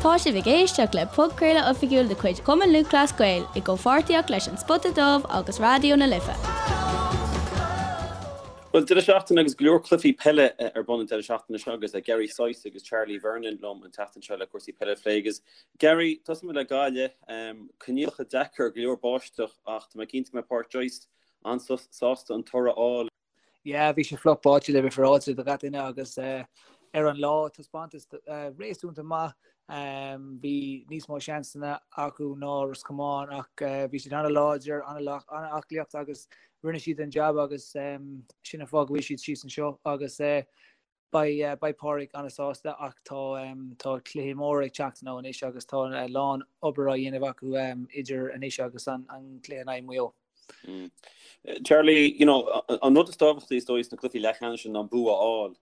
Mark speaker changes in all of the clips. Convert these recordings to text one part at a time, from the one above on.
Speaker 1: Tá sibh ag éisteacht le podchraoladh oifigiúil de chuid Chumann Lúthchleas Gael i gcomhpháirtíocht leis An Spota Dubh agus Raidió na Life.
Speaker 2: Bhuel, deireadh seachtaine agus go leor cluichí peile ar bun an deireadh seachtaine seo agus Gary Sice agus Charlie Vernon liom an tseachtain seo le cúrsaí peile a phlé. Agus Gary, tosóidh muid le Gaillimh. Coinníollacha deacair, go leor báisteach ach tá mé cinnte go mbeidh Pádraic Joyce an-sásta an toradh a fháil.
Speaker 3: Yeah, bhí sé fliuch báite le bheith féaráilte do gach duine agus ar an lá taispeántas réasúnta maith. Bhí níos mó seansanna acu ná Ros Comáin ach bhí siad an-láidir, an-aclaíocht agus rinne siad an jab agus sin an fáth go bhfuil siad síos anseo agus beidh beidh Pádraig an-sásta ach tá tá cluichí móra ag teacht now anois agus tá a lán obair á dhéanamh acu idir anois agus an cluiche in aghaidh Maigh Eo.
Speaker 2: Charlie, you know, an rud is tábhachtaí is dóigh sna cluichí leathcheannais sin ná an bua a fháil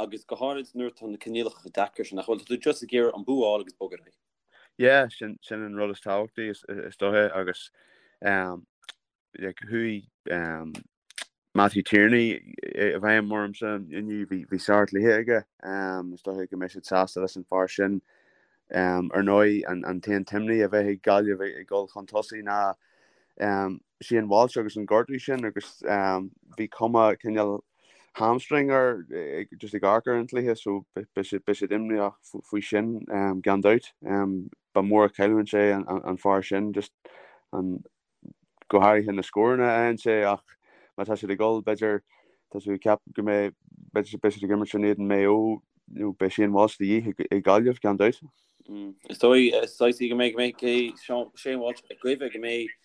Speaker 2: agus go háirid nuair atá na coinníollacha chomh deacair sin, nach bhfuil? Tá tú just ag iarraidh an bua a fháil agus bogadh ar aghaidh.
Speaker 4: Yeah, sin sin an rud is tábhachtaí is is dóiche agus um, like, chuaigh um, Matthew Tierney i bhfeidhm ormsa inniu, bhí bhí sárchluiche aige. Um, is dóiche go mbeidh siad sásta leis an fear sin. Um, ar ndóigh an an t-aon t-imní a bheidh ag Gaillimh ag ag dul chun tosaigh ná um, Shane Walsh agus an gortú sin agus um, bhí cuma cineál hamstring air just ag amharc ar an chluiche so beidh siad beidh siad imníoch faoi sin um, gan dabht. Um, ba mhór an chailliúint é an, an, an fear sin just an go háirithe na scóranna a fhaigheann sé ach má tá siad ag dul b'fhéidir tá tú ag ceapadh go mbeidh b'fhéidir beidh siad ag imirt in éadan Maigh Eo nó beidh Shane Walsh de dhíth ag Gaillimh gan dabht.
Speaker 2: Is dóigh saghas go mbeidh go mbeidh Shane Walsh ag guí go mbeidh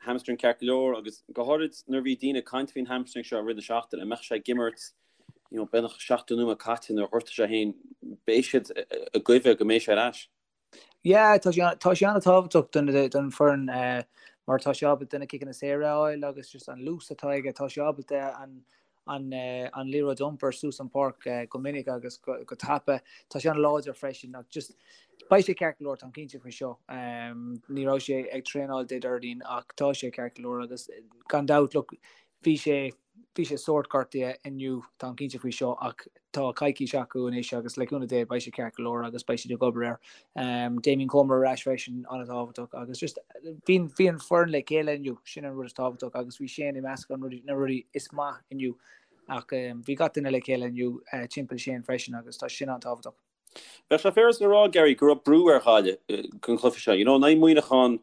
Speaker 2: hamstring ceart go leor agus go háirid nuair a bhí daoine ag caint faoin hamstring seo i rith na seachtaine, an mbeadh sé ag imirt you know, beagnach 70 nóiméad caite nuair a ghortaigh sé féin, beidh siad ag guí go mbeidh sé ar ais.
Speaker 3: Yeah, tá sé tá sé an-tábhachtach don don foireann mar tá sé ábalta na ciceanna saora a fháil agus just an luas atá aige, tá sé ábalta an an an liathróid a iompar suas an páirc go minic agus go go tapa. Tá sé an-láidir freisin ach just beidh sé ceart go leor, táim cinnte faoi seo. Ní raibh sé ag traenáil Dé Déardaoin ach tá sé ceart go leor agus gan dabht look bhí sé Bhí sé sórt gortaithe inniu, táim cinnte faoi seo, ach tá coicís acu anois agus le cúnamh Dé beidh sé ceart go leor agus beidh siad ag obair air. Damien Comer ar ais freisin, an-tábhachtach agus just bhí bhí an foireann le chéile inniu, sin an rud is tábhachtach agus bhí Shane i measc an rudaí, na rudaí is maith inniu ach bhí gach duine le chéile inniu timpeall Shane freisin agus tá sin an-tábhachtach.
Speaker 2: Bheadh sé féaráilte a rá, Gary, go raibh brú ar Ghaillimh don chluiche seo. You know, in aghaidh Muineachán,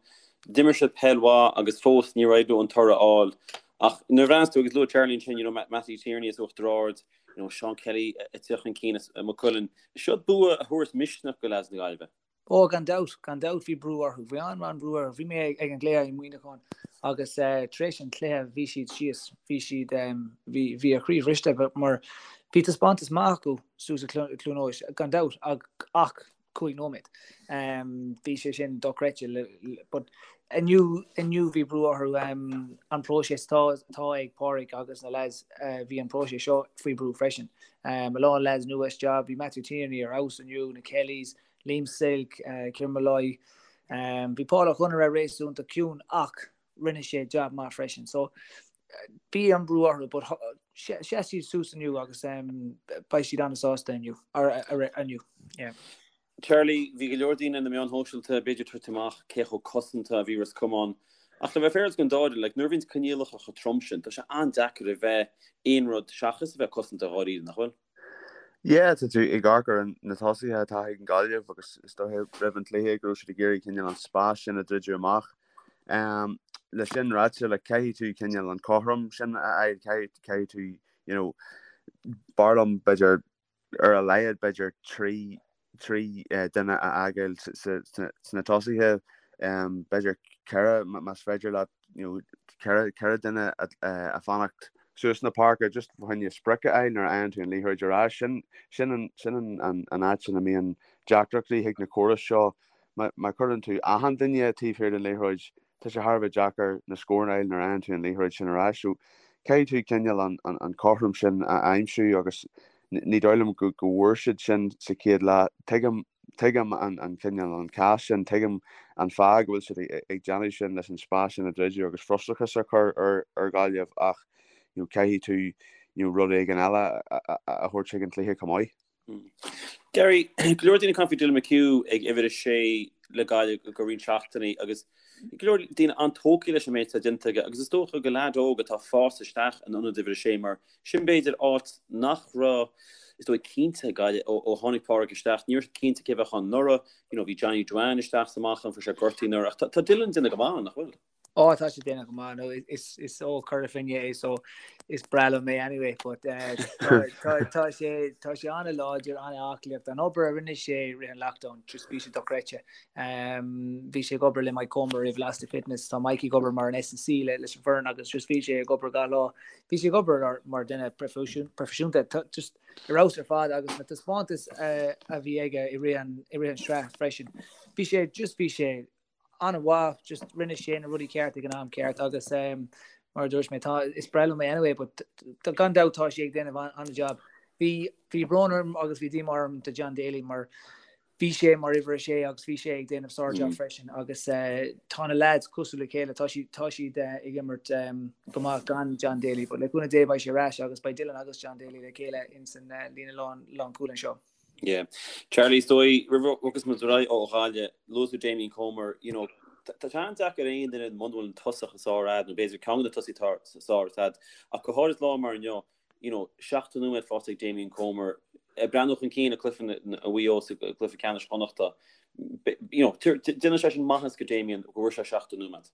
Speaker 2: d'imir siad peil mhaith agus fós níor éirigh leo an toradh a fháil. Ach nuair a bhreathnaíos tú, agus luaigh Charlie ansin, you know, Mattie Tierney as Uachtar Ard, you know, Seán Kelly ag teacht chun cinn as Maigh Cuilinn. Seo bua a thabharfas misneach do leaids na Gaillimhe.
Speaker 3: Ó, gan dabht, gan dabht bhí brú orthu. Bhí an-an-bhrú orthu. Bhí mé ag an gcluiche i Muineachán agus tar éis an chluiche bhí siad síos, bhí siad, bhí, bhí a chroí bhriste mar bhí taispeántas maith acu suas i Cluain Eois, gan dabht, ach 5 nóiméad. Bhí sé sin dochreidte. But inniu, inniu bhí brú orthu. An próiseas atá, atá ag Pádraig agus na lads, bhí an próiseas seo faoi brú freisin. A lán lads nua isteach, bhí Matthew Tierney ar fheabhas inniu, na Kellys, Liam Silke, Kieran Molloy. Bhí Paul Ó Conaire réasúnta ciúin ach rinne sé jab maith freisin. So bhí an brú orthu but sheas siad suas inniu agus beidh siad an-sásta inniu. inniu. Yeah.
Speaker 2: Charlie, bhí go leor daoine na meáin shóisialta b'fhéidir ag tabhairt amach cé chomh cosanta a bhí Ros Comáin. Ach le bheith féaráilte don dá fhoireann, like, nuair a bhíonns coinníollacha chomh trom sin, tá sé an-deacair a bheith aon rud seachas a bheith cosanta dháiríre, nach bhfuil?
Speaker 4: Yeah, tá tú ag amharc ar na tosaithe atá ag an Gaillimh agus is dóiche roimh an chluiche go raibh siad ag iarraidh cineál an spás sin a dhruideadh amach. Le sin ráite, like, caithfidh tú cineál an cothrom sin a fháil, caithfidh, caithfidh tú, you know, b'fhearr liom b'fhéidir ar a laghad b'fhéidir 3 3 duine a fhágáil sna tosaithe, b'fhéidir 4 más féidir leat, you know, 4 4 duine a fanacht suas na páirce just fá choinne sprioc a fháil nuair a fhaigheann tú an liathróid ar ais. Sin sin an sin an an an áit ina mbíonn deacrachtaí chuig na córais seo. Má má chuireann tú achan duine taobh thiar den liathróid, tá sé thar a bheith deacair na scóranna a fháil nuair a fhaigheann tú an liathróid sin ar ais. So caithfidh tú cineál an an an cothrom sin a aimsiú agus ní dóigh liom go go bhfuair siad sin sa chéad leath. Tuigim Tuigim an cineál an cás sin, tuigim an fáth go bhfuil siad ag déanamh sin leis an spás sin a dhruideadh agus frustrachas a chur ar Ghaillimh ach you know caithfidh tú you know rud éigin eile a thabhairt chuig an chluiche chomh maith.
Speaker 2: Gary, go leor daoine ag caint faoi Dylan McHugh ag uimhir a sé le Gaillimh go roinnt seachtainí agus go leor daoine an-tógtha leis an méid atá déanta aige agus is dócha go leaid óg atá ag fás isteach in ionad uimhir a sé mar sin b'fhéidir áit nach raibh is dóigh cinnte ag Gaillimh ó tháinig Pádraig isteach. Ní raibh siad cinnte cé a bheadh ann anuraidh. You know, bhí Johnny Duane isteach is amach ann, fuair sé gortaithe anuraidh ach tá Dylan ag déanamh go maith, nach bhfuil?
Speaker 3: Ó tá sé ag déanamh go maith nó is is ó Chora Finne é so is breá liom é anyway but eh, tá sé tá sé an-láidir an-aclaí an obair a rinne sé i rith an lockdown just bhí sé dochreidte. Um, bhí sé ag obair le Mike Comer i Velocity Fitness tá Mike ag obair mar an S&C le leis an bhfoireann agus just bhí sé ag obair gach lá. Bhí sé ag obair mar duine proifisiúnta just ar fheabhas ar fad agus na taispeántais eh, a bhí aige i rith an i rith an sraith freisin. Bhí sé just bhí sé an-mhaith, just rinne sé na rudaí ceart ag an am ceart agus um, mar a dúirt mé tá is breá liom é anyway, but gan dabht tá sé ag déanamh an-job. Bhí bhí brón orm agus bhí díomá orm do John Daly mar bhí sé mar uimhir a sé agus bhí sé ag déanamh sár-job mm. freisin agus uh, tá na lads cosúil le chéile tá siad tá siad uh, ag imirt um, go maith gan John Daly, but le cúnamh Dé beidh sé ar ais agus beidh Dylan agus John Daly le chéile in san uh, líne lán lánchúil anseo.
Speaker 2: Yeah. Charlie, is dóigh, roimh a bhogas muid ar aghaidh ó Ghaillimh, luaigh tú Damien Comer, you know, tá sé an-deacair aon duine muna bhfuil an tosach is fearr a'd, nó b'fhéidir ceann de na tosaithe atá is fearr a'd, ach go háirid lá mar inniu, you know, 70 nóiméad faighte ag Damien Comer, ag breathnú chun cinn ag cluiche Mhaigh Eo sa gcluiche ceannais Chonnachta, you know, déanann sé sin maitheas go Damien go bhfuair sé 70 nóiméad.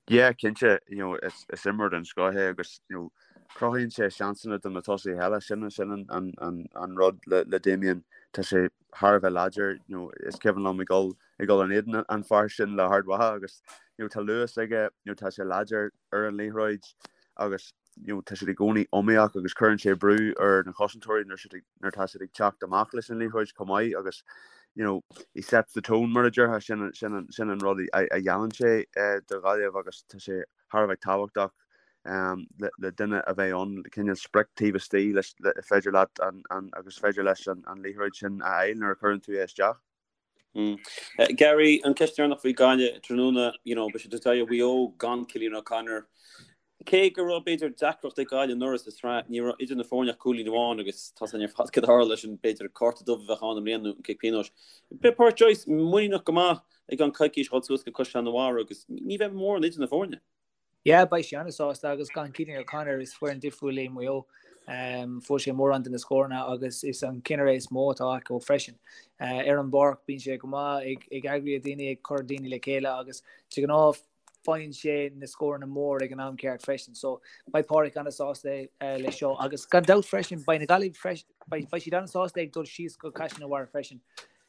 Speaker 4: Yeah, cinnte, you know, is, is imreoir den scoth é agus, you know, cruthaíonn sé seansanna do na tosaithe eile, sin, sin an, an, an, an rud le, le Damien, tá sé thar a bheith láidir, you know, is cuimhin liom ag dul, ag dul in éadan an fear sin le hArd Mhacha agus, you know, tá luas aige, you know, tá sé láidir ar an liathróid agus, you know, tá siad i gcónaí iomaíoch agus cuireann sé brú ar na cosantóirí nuair siad ag, nuair atá siad ag teacht amach leis an liathróid chomh maith agus, you know, he sets the tone mar a déarfá, sin, sin, an, sin an rud a, a dhéanann sé eh, do Ghaillimh agus tá sé thar a bheith tábhachtach um, le, le duine a bheith ann, cineál sprioc taobh istigh leis, le, féidir leat an, an, agus féidir leis an, an liathróid sin a fháil nuair a chuireann tú é isteach.
Speaker 2: Gary, an ceist deireanach faoi Gaillimh tráthnóna, you know, beidh siad ag tabhairt aghaidh ar Mhaigh Eo gan Cillian O'Connor. Cé go raibh b'fhéidir deacracht ag Gaillimh anuraidh sa tsraith, ní raibh idir na foirne ach cúilín amháin agus tá a fhios againn ar fad cad a tharla leis an b'fhéidir cárta dubh a bheadh ann i mbliana nó an cic pionóis. Beidh Pádraic Joyce muiníneach go maith i gceann coicís a dhul suas go Caisleán an Bharraigh agus ní bheidh mórán idir na foirne.
Speaker 3: Yeah, beidh sé an-sásta agus gan Cillian O'Connor is foireann difriúil é Maigh Eo. Fuair sé mórán de na scóranna agus is an ceannaire is mó atá acu freisin. Ar an bpáirc bíonn sé go maith ag eagraí daoine, ag cur daoine le chéile agus de ghnáth faigheann sé na scóranna mór ag an am ceart freisin. So beidh Pádraic an-sásta leis seo agus gan dabht freisin beidh na Gaillimh beidh siad an-sásta ag dul síos go Caisleán an Bharraigh freisin.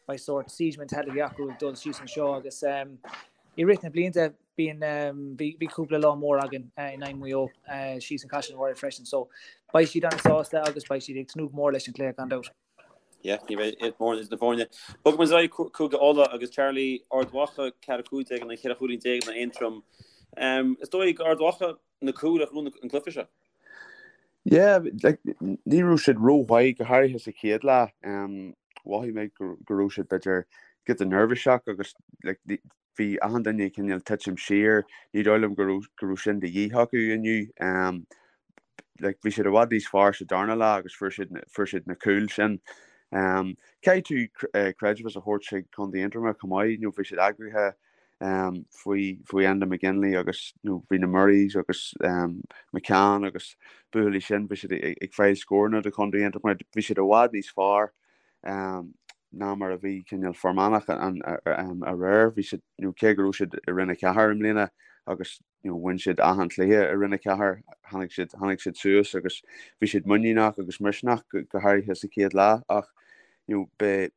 Speaker 3: Beidh sórt siege mentality acu ag dul síos anseo agus i rith na blianta Bíonn, bhí cúpla lá mór againn in aghaidh Mhaigh Eo síos in Caisleán an Bharraigh freisin so beidh siad an-sásta agus beidh siad ag tnúth go mór leis an chluiche gan dabht.
Speaker 2: Yeah, ní bheidh mórán idir na foirne. Bogfaidh muid ar aghaidh Cúige Uladh agus Charlie, Ard Mhacha 4 15 in aghaidh 4 chúilín in aghaidh Aontroim. Is dóigh gur Ard Mhacha na cúil a ghnóthaigh an cluiche seo.
Speaker 4: Yeah, like, ní raibh siad rómhaith go háirithe sa chéad leath. Mhothaigh mé go raibh siad b'fhéidir giota neirbhíseach agus like, Bhí achan duine ag cineál titim siar, ní dóigh liom go raibh go raibh sin de dhíth acu inniu. Like bhí siad i bhfad níos fearr sa darna leath agus fuair siad fuair siad na cúil sin. Caithfidh tú creidmheas a thabhairt chuig Contae Aontroma chomh maith, you know, bhí siad eagraithe faoi faoi Enda McGinley agus you know, bhí na Murrays agus McCann agus buachaillí sin, bhí siad ag fáil scóranna do Chontae Aontroma, bhí siad i bhfad níos fearr. ná mar a bhí cineál Fear Manach aréir. Bhí siad, you know, cé go raibh siad i Roinn 4 i mbliana agus you know, bhain siad achan chluiche i Roinn 4, tháinig siad, tháinig siad suas agus bhí siad muiníneach agus misneach go, go háirithe sa chéad leath ach you know, be,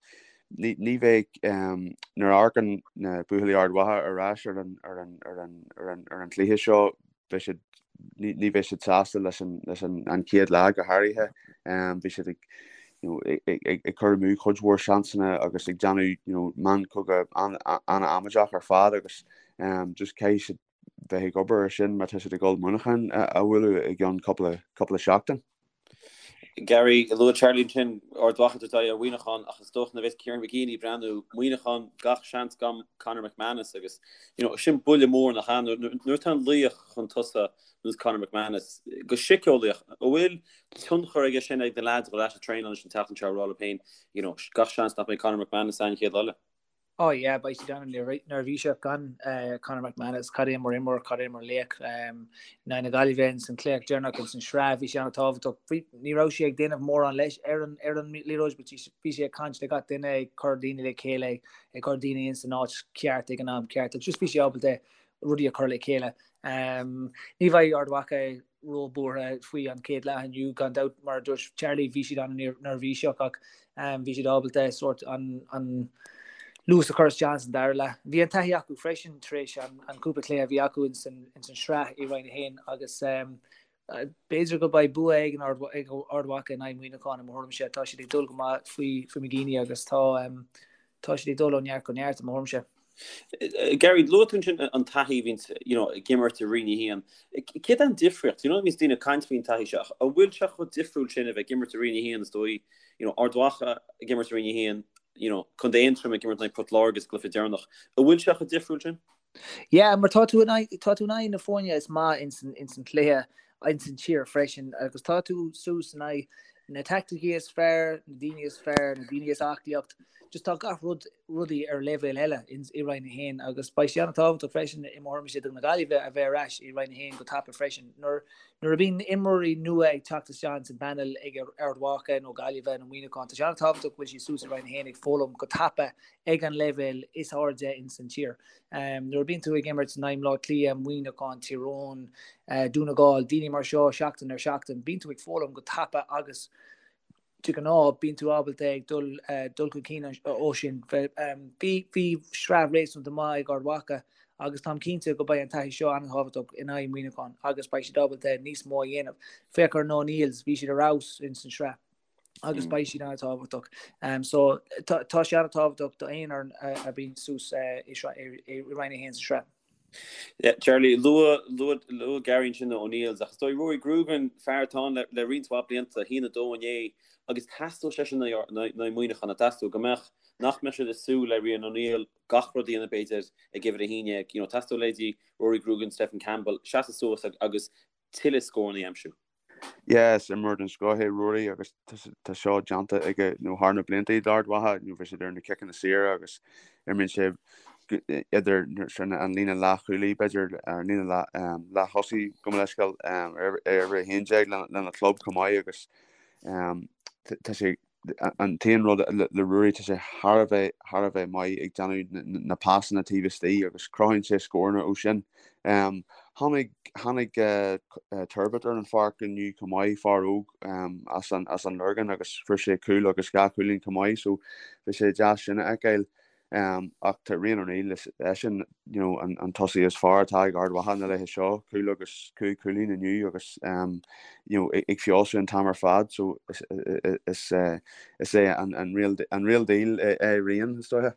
Speaker 4: ní, ní bheidh um, nuair a amharcann na buachaillí Ard Mhacha ar ais ar an, ar an, ar an, ar an, ar an chluiche seo, beidh siad, ní bheidh siad sásta leis an, leis an, an chéad leath go háirithe. Bhí siad ag, you know, ag, ag, ag cur amú cuid mhór seansanna agus ag déanamh, you know, meancogadh an-amaideach ar fad agus um, just caithfidh siad bheith ag obair ar sin má tá siad ag dul Muineachán a, a bhualadh i gceann cúpla, cúpla seachtain.
Speaker 2: Gary, Luaigh Charlie ansin Ard Mhacha ag tabhairt aghaidh ar Mhuineachán ach is dócha nuair a bheas Kieran McGeeney ag breathnú Muineachán gach seans gan Conor McManus agus you know sin buille mór nach ea nuair atá an laoch chun tosaigh ar nós Conor McManus go síceolaíoch an bhfuil tionchar aige sin ag na leaids a dhul ar ais ag traenáil leis an tseachtain seo ag rá leo féin you know gach seans nach mbeidh Conor McManus an chéad lá eile.
Speaker 3: Oh yeah, beidh siad an-neirbhíseach gan Conor McManus, cad é mar imreoir, cad é mar laoch. In aghaidh na Gaillimhe ins an cluiche deireanach ins an sraith, bhí sé an-tábhachtach. Ní raibh sé ag déanamh mórán leis ar an ar an liathróid, but bhí sé ag caint le gach duine, ag cur daoine le chéile, ag cur daoine ins an áit ceart ag an am ceart. Agus just bhí sé ábalta rudaí a chur le chéile. Ní bheidh Ard Mhacha ró-bhuartha faoi an chéad leath inniu, gan dabht, mar a dúirt Charlie, bhí siad an-neirbhíseach ach bhí siad ábalta sórt an luas a chur isteach san dara leath. Bhí an taithí acu freisin tar éis an cúpla cluiche a bhí acu ins an sraith i Roinn 1 agus b'fhéidir go beidh bua ag Ard Mhacha in aghaidh Muineacháin i mo thuairimse. Tá siad ag dul go maith faoi McGeeney agus tá Tá siad ag dul ó neart go neart, i mo thuairimse.
Speaker 2: Gary, luaigh tú ansin an taithí a bhíonns, you know, ag imirt i Roinn 1. Céard é an difríocht? You know, bíonns daoine ag caint faoin taithí seo. An bhfuil sé chomh difriúil sin a bheith ag imirt i Roinn 1 is dóigh, you know, Ard Mhacha ag imirt i Roinn 1, you know, Contae Aontroim ag imirt in aghaidh Port Láirge sa gcluiche deireanach. An bhfuil sé chomh difriúil sin?
Speaker 3: Yeah, mar tá tú in aghaidh, tá tú in aghaidh na foirne is maith ins an, ins an chluiche, ins an tír freisin, agus tá tú suas in aghaidh na taicticí is fearr, na daoine is fearr, na daoine is aclaíocht, just tá gach rud, rudaí ar leibhéal eile ins, i Roinn 1, agus beidh sé an-tábhachtach freisin i mo thuairimse do na Gaillimhe a bheith ar ais i Roinn 1 go tapa freisin. Nuair, nuair a bhíonn imreoirí nua ag teacht isteach ins an bpanel ag Ard Mhacha nó Gaillimhe nó Muineachán, tá sé an-tábhachtach go bhfuil siad suas i Roinn 1 ag foghlaim go tapa ag an leibhéal is airde ins an tír. Nuair a bíonn tú ag imirt in aghaidh Bhaile Átha Cliath, Muineachán, Tír Eoghain, Dún na nGall, daoine mar seo seachtain ar seachtain, bíonn tú ag foghlaim go tapa agus de ghnáth bíonn tú ábalta ag dul dul chun cinn ó sin. Bhí bhí sraith réasúnta maith ag Ard Mhacha agus táim cinnte go beidh an taithí seo an-tábhachtach in aghaidh Muineachán agus beidh siad ábalta níos mó a dhéanamh. Féach ar na O'Neills, bhí siad ar fheabhas ins an sraith. agus beidh siad an-tábhachtach. So tá sé an-tábhachtach do aon fhoireann a bhíonn suas i Roinn 1 sa sraith.
Speaker 2: Yeah, Charlie, luaigh, luaigh, luaigh Gary ansin na O'Neills, ach is dóigh Rory Grugan, fear atá ann le, le roinnt mhaith blianta, 1-2 inné, agus theastódh sé sin in aghaidh Muineachán, nach dteastódh, go mbeadh, nach mbeadh siad ag súil le Rian O'Neill gach rud a dhéanamh b'fhéidir ag uimhir 11, you know, theastódh leithéidí Rory Grugan, Stephen Campbell, seasamh suas agus tuilleadh scóranna a aimsiú.
Speaker 4: Yeah, is imreoir den scoth é Rory agus tá seo déanta aige nó thar na blianta d'Ard Mhacha, nó bhí sé ar na ciceanna saora agus imríonn sé idir an líne leathchúlaí b'fhéidir ar an líne leath-thosaí gabh mo leithscéal ar uimhir 11 lena chlub chomh maith agus tá sé An t-aon rud le Ruairí, tá sé thar a bheith, thar a bheith maith ag déanamh na pasanna taobh istigh agus cruthaíonn sé scóranna ó sin. Tháinig, tháinig Turbitt ar an pháirc inniu chomh maith, fear óg as an, as an Lorgain agus fuair sé cúl agus dhá chúilín chomh maith so bhí sé deas sin a fheiceáil. Ach tá Rian O'Neill, is eisean you know, an, an tosaí is fearr atá ag Ard Mhacha na laethe seo, cúl agus cúig chúilín inniu agus you know, ag feabhsú an t-am ar fad, so is, is, is é an, an, real, an real deal é Rian, is dóiche.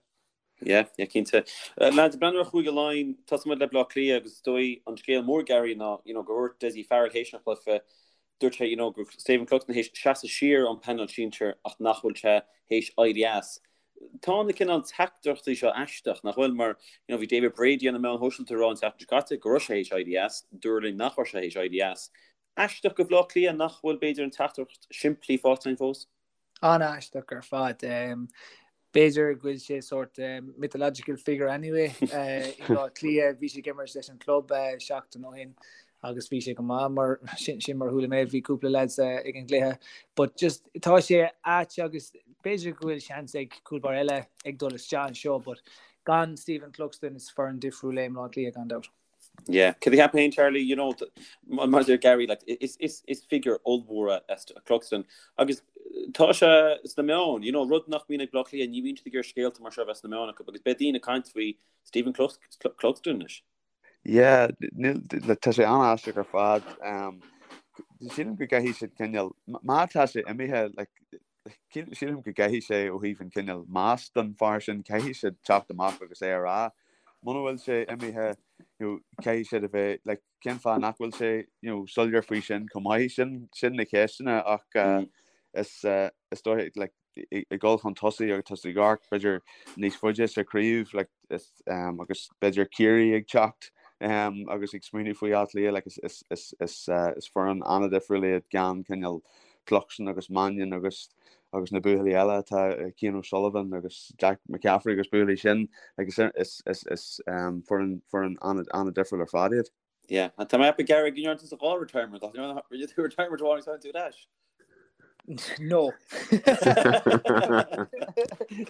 Speaker 2: Yeah, yeah, cinnte. Lads, breathnú ar Chúige Laighean, tosóidh muid le Bleá Cliath agus is dóigh an scéal mór Gary ná, you know, gur dhúirt Dessie Farrell théis an chluiche, dúirt sé, you know, go raibh Stephen Cluxton théis seasamh siar ón bpainéal sinsir ach nach bhfuil sé théis éirí as. Tá na cineál teachtaireachtaí seo aisteach, nach bhfuil? Mar, you know, bhí David Brady ar na meáin shóisialta ag rá an tseachtain seo caite go raibh sé théis éirí as, dúradh linn nach raibh sé théis éirí as. Aisteach do Bhleá Cliath nach bhfuil, b'fhéidir, an teachtaireacht simplí faighte againn fós?
Speaker 3: An-aisteach ar fad. B'fhéidir go bhfuil sé sórt mythological figure anyway i mBleá Cliath. Bhí sé ag imirt leis an club seachtain ó shin agus bhí sé go maith mar sin sin mar chuala mé bhí cúpla lads ag an gcluiche. But just tá sé ait agus b'fhéidir go bhfuil seans ag cúl báire eile ag dul isteach anseo but gan Stephen Cluxton is foireann difriúil é Bleá Cliath gan dabht.
Speaker 2: Yeah, cad a cheapann féin Charlie, you know, mar a deir Gary, like, is, is, is figure ollmhór é Cluxton agus tá sé sna meáin, you know, rud nach mbíonn ag Bleá Cliath, ní bhíonn siad ag iarraidh scéalta mar seo a bheith sna meáin acu agus beidh daoine ag caint faoi Stephen Cluxton anois.
Speaker 4: Yeah, níl, tá sé an-aisteach ar fad. Sílim go gcaithfidh siad cineál, má tá sé imithe, like, sílim go gcaithfidh sé ó thaobh an cineál meas don fear sin, caithfidh siad teacht amach agus é a rá. Muna bhfuil sé imithe, you know, caithfidh siad a bheith, like, cén fáth nach bhfuil sé, you know, soiléir faoi sin chomh maith? Sin, sin na ceisteanna ach, mm. is is dóigh like ag dul chun tosaigh agus tá tú ag amharc b'fhéidir níos faide sa chraobh like is agus b'fhéidir Ciarraí ag teacht agus ag smaoineamh faoi Áth Cliath like is is is is is foireann an-difriúil iad gan cineál Cluxton agus Mannion agus agus na buachaillí eile atá Cian O'Sullivan agus Jack McCaffrey agus buachaillí sin like is is is is foireann foireann an-difriúil ar fad iad.
Speaker 2: Yeah, tá mé ag ceapadh Gary go ndearna tusa dhá retirement ach rinne tú retirement amháin agus tháinig tú ar ais.
Speaker 3: No.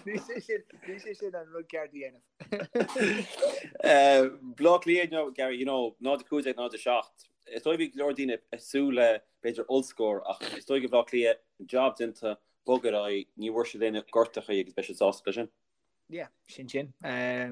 Speaker 3: Ní sé sin ní sé sin an rud ceart a dhéanamh.
Speaker 2: Baile Átha Cliath no Gary, you know, 0 15 0 7. Is dóigh bhí go leor daoine ag súil le b'fhéidir ollscór ach is dóigh go Baile Átha Cliath job déanta bog ar aghaidh, ní bhfuair siad aon gortachaí agus beidh siad sásta leis sin.
Speaker 3: Yeah, sin sin. I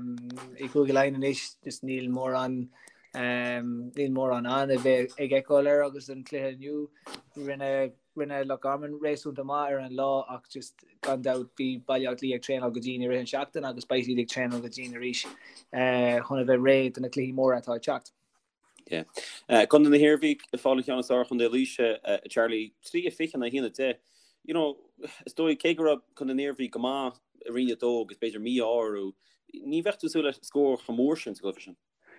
Speaker 3: gCúige Laighean anois, just níl mórán níl mórán ann a bheith ag feiceáil air agus an cluiche inniu rinne rinne Loch Garman réasúnta maith ar an lá ach just gan dabht bhí Baile Átha Cliath ag traenáil go dian i rith an seachtain agus beidh siad ag traenáil go dian arís chun a bheith réidh do na cluichí móra atá ag teacht.
Speaker 2: Yeah. Contae na hIarmhí ag fáil an cheann is fearr ar Chontae Laoise, Charlie, 3 20 in aghaidh 1 10. You know, is dóigh cé go raibh Contae na hIarmhí go maith i Roinn 2 agus b'fhéidir mí-ádh orthu, ní bheadh tú ag súil le scór chomh mór sin sa gcluiche sin.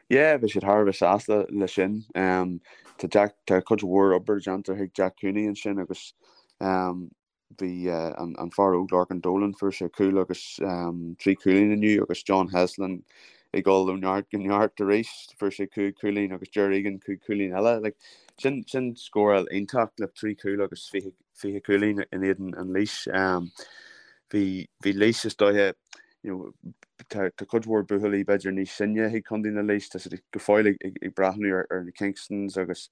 Speaker 4: Yeah, bhí siad thar a bheith sásta le sin. Tá Jack, tá cuid mhór obair déanta ag Jack Cooney ansin agus bhí an fear óg Lorcan Dolan, fuair sé cúl agus 3 chúilín inniu agus John Heslin ag dul ó neart go neart arís, fuair sé 5 chúilín agus Ger Egan 5 chúilín eile. Like, sin, sin scóráil iontach le 3 chúl agus 20, 20 cúilín in éadan an Laois. Bhí, bhí Laois is dóiche, you know, tá, tá cuid mhór buachaillí b'fhéidir níos sine ag Contae na Laois, tá siad go fóill ag, ag, ag breathnú ar, ar na Kingstons agus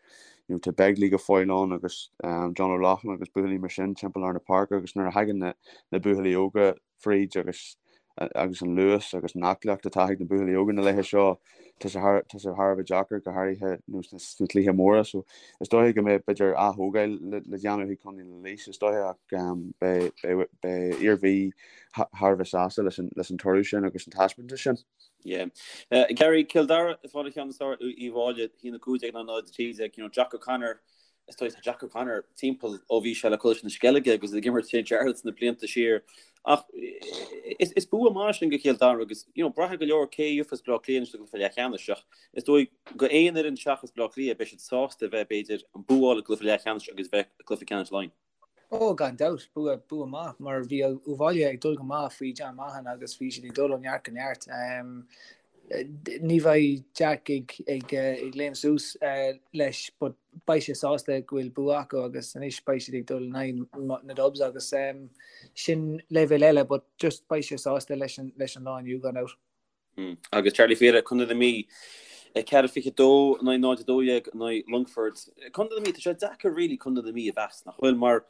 Speaker 4: you know, tá Begley go fóill ann agus um, John O'Loughlin agus buachaillí mar sin timpeall ar na páirce agus nuair a thagann na, na buachaillí óga fríd agus agus an luas agus an aclaíocht atá ag na buachaillí óga na laethe seo, tá sé thar, tá sé thar a bheith deacair go háirithe nó sna, sna cluichí móra. So is dóiche go mbeidh b'fhéidir ath-thógáil le, le déanamh ag Contae na Laois is dóiche ach um, beidh, beidh, beidh Iarmhí thar a bheith sásta leis an, leis an toradh sin agus an taispeántas sin.
Speaker 2: Yeah. Uh, Gary Cill Dara ag fáil an cheann is fearr ar Uíbh Fhailí 1 15 0 13 you know, Jack O'Connor Is dóigh tá Jack O'Connor timpeall ó bhí sé le Coláiste na Sceilge agus ag imirt St Jarlath's na blianta siar. Ach is, is bua maith sin do Chill Dara agus you know, braithfidh go leor cé a gheofas Baile Átha Cliath anois sa gcluiche leathcheannais ach is dóigh go aon fhoireann seachas Baile Átha Cliath beidh siad sásta a bheith b'fhéidir an bua a fháil i gcluiche leathcheannais agus bheith i gcluiche ceannais Laighean.
Speaker 3: Ó, gan dabht, bua, bua maith, mar bhí Uíbh Fhailí ag dul go maith faoi John Maughan agus bhí siad ag dul ó neart go neart. Ní bheidh Jack ag, ag, ag léim suas leis, but beidh sé sásta go bhfuil bua acu agus anois beidh siad ag dul in aghaidh na Dubs agus sin leibhéal eile, but just beidh sé sásta leis an, leis an lá inniu, gan dabht.
Speaker 2: Agus Charlie Fiala, Contae na Mí, 4-22 in aghaidh 0-12 in aghaidh Longford. Contae na Mí, tá sé deacair really Contae na Mí a mheas, nach bhfuil? Mar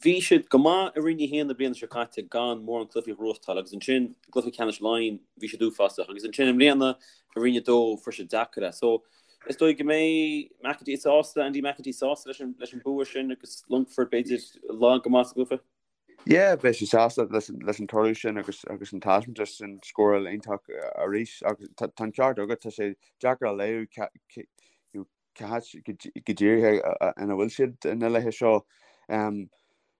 Speaker 2: bhí siad go maith i Roinn 1 na bliana seo caite gan mórán cluichí a ghnóthachtáil agus ansin i gcluiche ceannais Laighean bhí siad uafásach agus ansin i mbliana i Roinn 2 fuair siad deacair é. So is dóigh go mbeidh McEntee sásta, Andy McEntee sásta leis an, leis an bua sin agus Longford b'fhéidir lag go maith sa gcluiche.
Speaker 4: Yeah, beidh sé sásta leis an toradh sin agus agus an taispeántas sin, scóráil iontach arís agus tá an ceart agat, tá sé deacair a léamh cá háit go díreach ina bhfuil siad na laethe seo.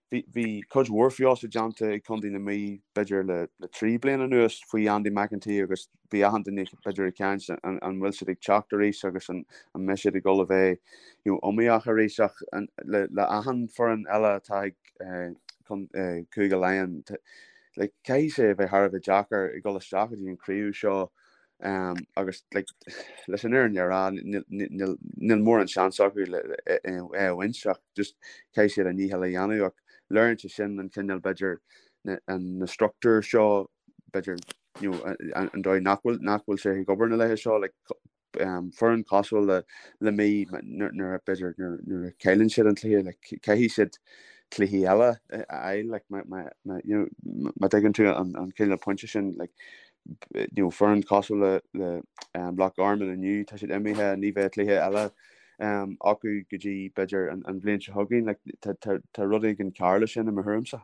Speaker 4: Bhí cuid mhór feabhas déanta ag Contae na Mí b'fhéidir le 3 bliana anuas faoi Andy McEntee agus bhí achan duine b'fhéidir ag caint an bhfuil siad ag teacht arís agus an mbeidh siad ag dul a bheith you know, iomaíoch arís ach le, le achan foireann eile atá ag eh, Cúige Laighean like, caithfidh sé a bheith thar a bheith deacair ag dul isteach go dtí an craobh seo um, agus like, leis an fhírinne a rá níl mórán seans acu le é a bhaint ach just caithfidh siad a ndícheall a dhéanamh ach léiríonn sé sin an cineál b'fhéidir na, na struchtúir seo b'fhéidir you know, an dóigh nach bhfuil nach bhfuil sé ag obair na laethe seo like, um, foireann cosúil le le Mí nuair b'fhéidir nuair a chailleann siad an cluiche like, caithfidh siad cluichí eile a fháil like, má, má, má, you know, má tuigeann tú an, an cineál pointe sin like, you know, foireann cosúil le, le um, Loch Garman inniu tá siad imithe ní bheidh cluiche eile um, acu go dtí b'fhéidir an, an bhliain seo chugainn like, tá, tá, tá rud éigin cearr leis sin i mo thuairimse.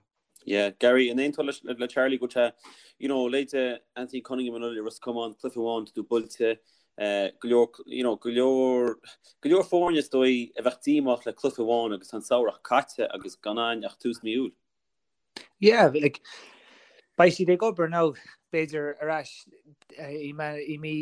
Speaker 2: Yeah, Gary, an aontófá leis le Charlie go bhfuil sé, you know, leithéide Anthony Cunningham anuraidh i Ros Comáin, cluiche amháin, tá tú buailte. Go leor, you know, go leor, go leor foirne is dóigh a bheadh díomách le cluiche amháin agus tá an samhradh caite agus gan ann ach tús mí Iúil.
Speaker 3: Yeah, like, beidh siad ag obair now, b'fhéidir ar ais i mí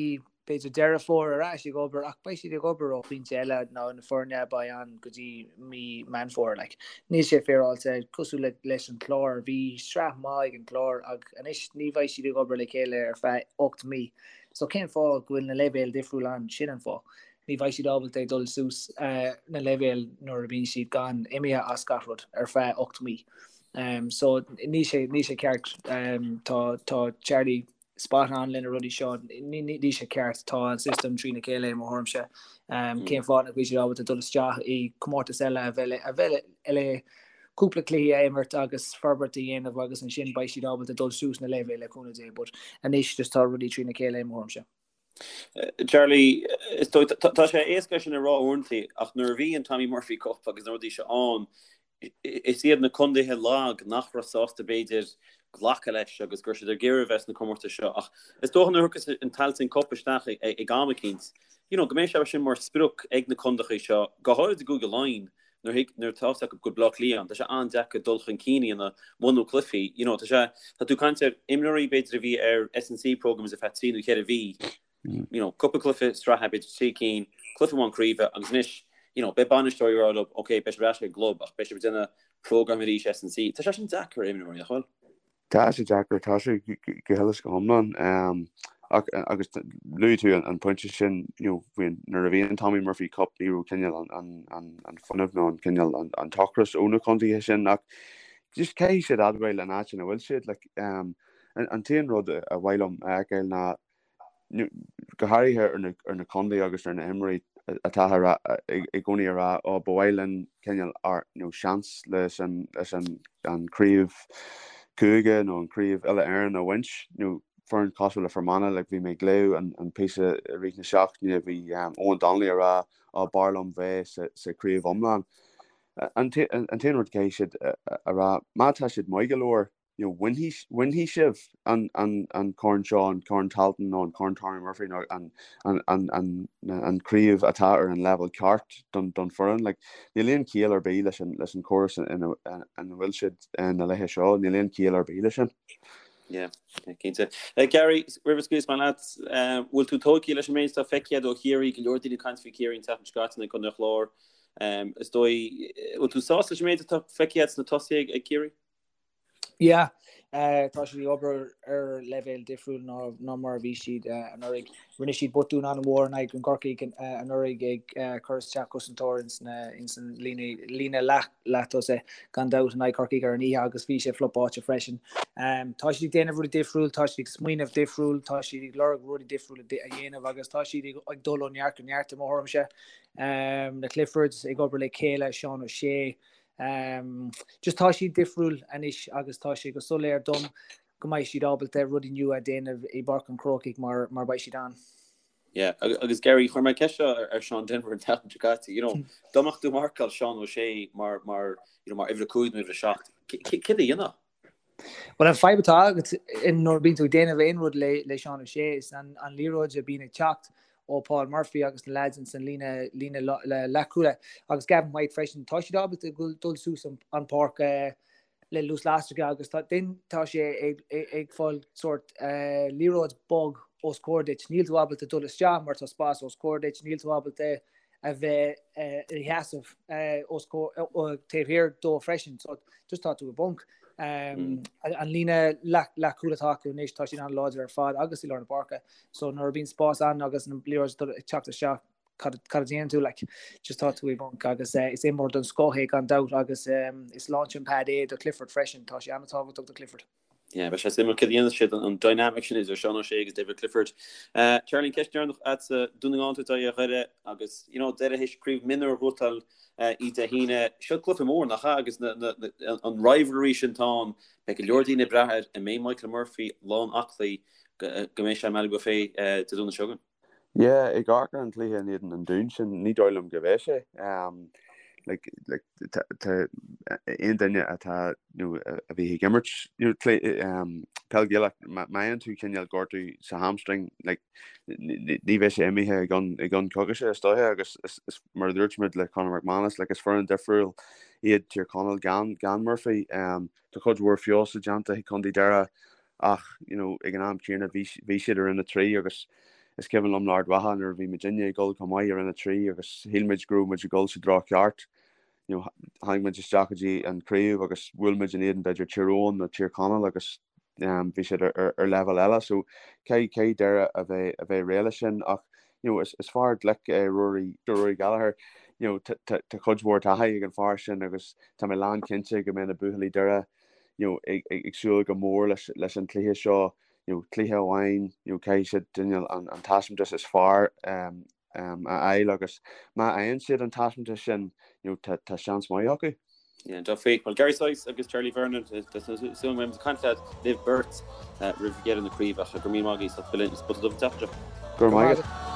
Speaker 3: b'fhéidir Deireadh Fómhair ar ais ag obair ach beidh siad ag obair ó phointe eile ná na foirne a beidh ann go dtí mí Meán Fómhair. Like, níl sé féaráilte cosúil le, leis an Clár. Bhí sraith maith ag an Clár ach anois ní bheidh siad ag obair le chéile ar feadh 8 mí. So cén fáth go bhfuil na leibhéil difriúil ann? Sin an fáth. Ní bheidh siad ábalta ag dul suas na leibhéil nuair a bhíonn siad gan imithe as gach rud ar feadh 8 mí. So níl sé, níl sé ceart. Tá, tá Charlie spot on le na rudaí seo. Níl sé ceart. Tá an system trína chéile i mo thuairimse. Cén fáth nach bhfuil siad ábalta dul isteach i comórtas eile a bheith, a bheith le cúpla cluichí a imirt agus forbairt a dhéanamh agus ansin beidh siad ábalta dul suas na leibhéil le cúnamh Dé but anois just tá rudaí trína chéile i mo thuairimse.
Speaker 2: Charlie, is dóigh, tá sé éasca sin a rá uaireanta ach nuair a bhí an Tommy Murphy Cup agus na rudaí seo ann, is iad na contaetha lag nach raibh sásta b'fhéidir glacadh leis agus go raibh siad ag iarraidh a bheith sna comórtais seo ach is dócha nuair a thiocfas an Tailteann Cup isteach ag am eicínt, you know, go mbeidh sé sin mar sprioc ag na contaetha seo, go háirid i gCúige Laighean, nuair thig, nuair atá fhios acu go bhfuil Bleá Cliath ann, tá sé an-deacair dul chun cinn a dhéanamh muna bhfuil cluichí, you know, tá sé, tá tú ag caint ar imreoirí b'fhéidir a bhí ar S&C programmes ar feadh trí nó cheithre mhí, you know, cúpla cluiche sraithe, b'fhéidir trí cinn, cluiche amháin craoibhe agus anois, you know, beidh bainisteoirí ag rá leo, ok, beidh sibh ar ais ag an gclub ach beidh sibh ag déanamh programme arís S&C. Tá sé sin deacair ar imreoirí, nach bhfuil?
Speaker 4: Tá sé deacair, tá sé go huile is go hiomlán. Ach agus luaigh tú an pointe sin, you know, faoin, nuair a bhí an Tommy Murphy Cup ní raibh cineál an, an, an fuinneamh nó an cineál an, an t-ocras ó na contaetha sin ach just caithfidh siad admháil an áit ina bhfuil siad. Like, an, an t-aon rud a mhaith liom a fheiceáil ná go háirithe ar na, ar na contaetha agus ar na himreoirí atá a rá, i gcónaí a rá, ó, ba mhaith linn cineál ár, nó seans leis an, leis an, an craobh cúige nó an craobh uile-Éireann a bhaint, nó foireann cosúil le Fermanagh, like, bhí mé ag léamh an, an píosa i rith na seachtaine, bhí um, Eoghan Donnelly a rá, ó, b'fhearr liom bheith sa, sa craobh iomlán. An, an, an t-aon rud caithfidh siad a, a, a rá, má tá siad maith go leor, you know, bainfidh, bainfidh sibh an, an, an corn seo, an corn Tailteann nó an corn Tommy Murphy nó an, an, an, an, an craobh atá ar an leibhéal ceart don, don foireann. Like, níl aon chiall ar bith leis an, leis an córas ina, ina bhfuil siad na laethe seo, níl aon chiall ar bith leis sin.
Speaker 2: Yeah, cinnte. Uh, Gary, roimh a scaoilfeas mé leat, uh, bhfuil tú tógtha leis an méid atá feicthe agat ó Chiarraí, go leor daoine ag caint faoi Chiarraí an tseachtain seo caite in aghaidh Contae an Chláir. Um, is dóigh, bhfuil tú sásta leis an méid atá feicthe agat sna tosaithe ag Ciarraí?
Speaker 3: Yeah, tá siad ag obair ar leibhéal difriúil ná ná mar a bhí siad anuraidh. Rinne siad botún an-mhór in aghaidh an Corcaigh anuraidh ag cur isteach cosantóir ins na ins an líne líne leath leath-tosaigh gan dabht in aghaidh Corcaigh ar an oíche agus bhí sé flopáilte freisin. Tá siad ag déanamh rudaí difriúil, tá siad ag smaoineamh difriúil, tá siad ag lorg rudaí difriúla a dhéanamh agus tá siad ag dul ó neart go neart i mo thuairimse. Na Cliffords ag obair le chéile, Seán O'Shea, Just tá siad difriúil anois agus tá sé go soiléir dom go mbeidh siad ábalta rudaí nua a dhéanamh i bPáirc an Chrócaigh mar mar beidh siad ann.
Speaker 2: Yeah, agus Gary, chuir mé ceist seo ar Sean Denvir an tseachtain seo caite, you know, dá mbeadh tú ag marcáil Seán O'Shea mar, mar, you know, mar uimhir a 5 nó uimhir a 7, céard a dhéanfá?
Speaker 3: Bhuel, an fadhb atá agat nuair a bíonn tú ag déanamh aon rud le Seán O'Shea is an liathróid a bíonn ag teacht ó Paul Murphy agus na leaids ins an líne líne leathchúla agus Gavin White freisin, tá siad ábalta dul suas an páirc le luas lasracha agus tá then tá sé ag ag fáil sórt liathróid bog os comhair duit. Níl tú ábalta dul isteach mar tá spás os comhair duit, níl tú ábalta a bheith ina sheasamh os taobh thiar dó freisin. So just tá tú i bponc. An líne leathchúil atá acu anois tá siad an-láidir ar fad agus i lár na páirce. So nuair a bhíonn spás ann agus an liathróid ag teacht isteach cad a déanann tú like just tá tú i bponc agus is imreoir den scoth é gan dabht agus is launching pad é do Clifford freisin. Tá sé an-tábhachtach do Clifford.
Speaker 2: Yeah, beidh sé suimiúil céard a dhéanfas siad an dynamic sin idir Seán O'Shea agus David Clifford. Charlie, an ceist dheireanach agatsa, Dún na nGall ag tabhairt aghaidh ar Dhoire agus, you know, Doire théis craobh mionúir a bhuachtáil oíche Dé hAoine. Seo cluiche mór, nach ea? Agus na, na, na, an rivalry sin atá ann, beidh go leor daoine ag brath air, an mbeidh Michael Murphy lán aclaí go, go mbeidh sé i mBaile Bhuirne Dé Domhnaigh seo chugainn?
Speaker 4: Yeah, ag amharc ar an chluiche in éadan an Dúin sin, ní dóigh liom go mbeidh sé. Like, like, tá aon duine atá, nó a bhí ag imirt, you know, peil Ghaelach, má fhaigheann tú cineál gortú sa hamstring, like, ní bheidh sé imithe i gcionn, i gcionn coicíse is dóiche agus is, is, mar a dúirt muid le Conor McManus, like, is foireann difriúil iad Tír Chonaill gan, gan Murphy. Tá cuid mhór feabhas déanta ag Contae Doire ach, you know, ag an am céanna bhí, bhí siad i Roinn 3 agus is cuimhin liom le Ard Mhacha nuair a bhí muidinne ag dul chomh maith i Roinn 3 agus shíl muid go raibh muid ag dul sa treo ceart. You know, tháinig muid isteach go dtí an craobh agus bhuail muid in éadan b'fhéidir Tír Eoghain nó Tír Chonaill agus um, bhí siad ar, ar, ar leibhéal eile so caithfidh, caithfidh Doire a bheith, a bheith réidh leis sin ach you know, is, is fear glic é Rory, Rory Gallagher you know, tá, tá, tá cuid mhór taithí ag an fear sin agus tá mé lán cinnte go mbeidh na buachaillí Doire you know, ag, ag, ag súil go mór leis, leis an cluiche seo you know, cluiche amháin you know, caithfidh siad cineál an, an taispeántas is fearr um, um, a fháil agus má fhaigheann siad an taispeántas sin you know, tá, tá seans maith acu.
Speaker 2: Yeah, dearfa. Well, Gary Sice agus Charlie Vernon, tá súil agam go mbeidh muid ag caint leat libh beirt roimh dheireadh na craoibhe ach go raibh míle maith agaibh as ucht a bheith linn ar an Spota Dubh an tseachtain seo.
Speaker 4: Go raibh maith agat.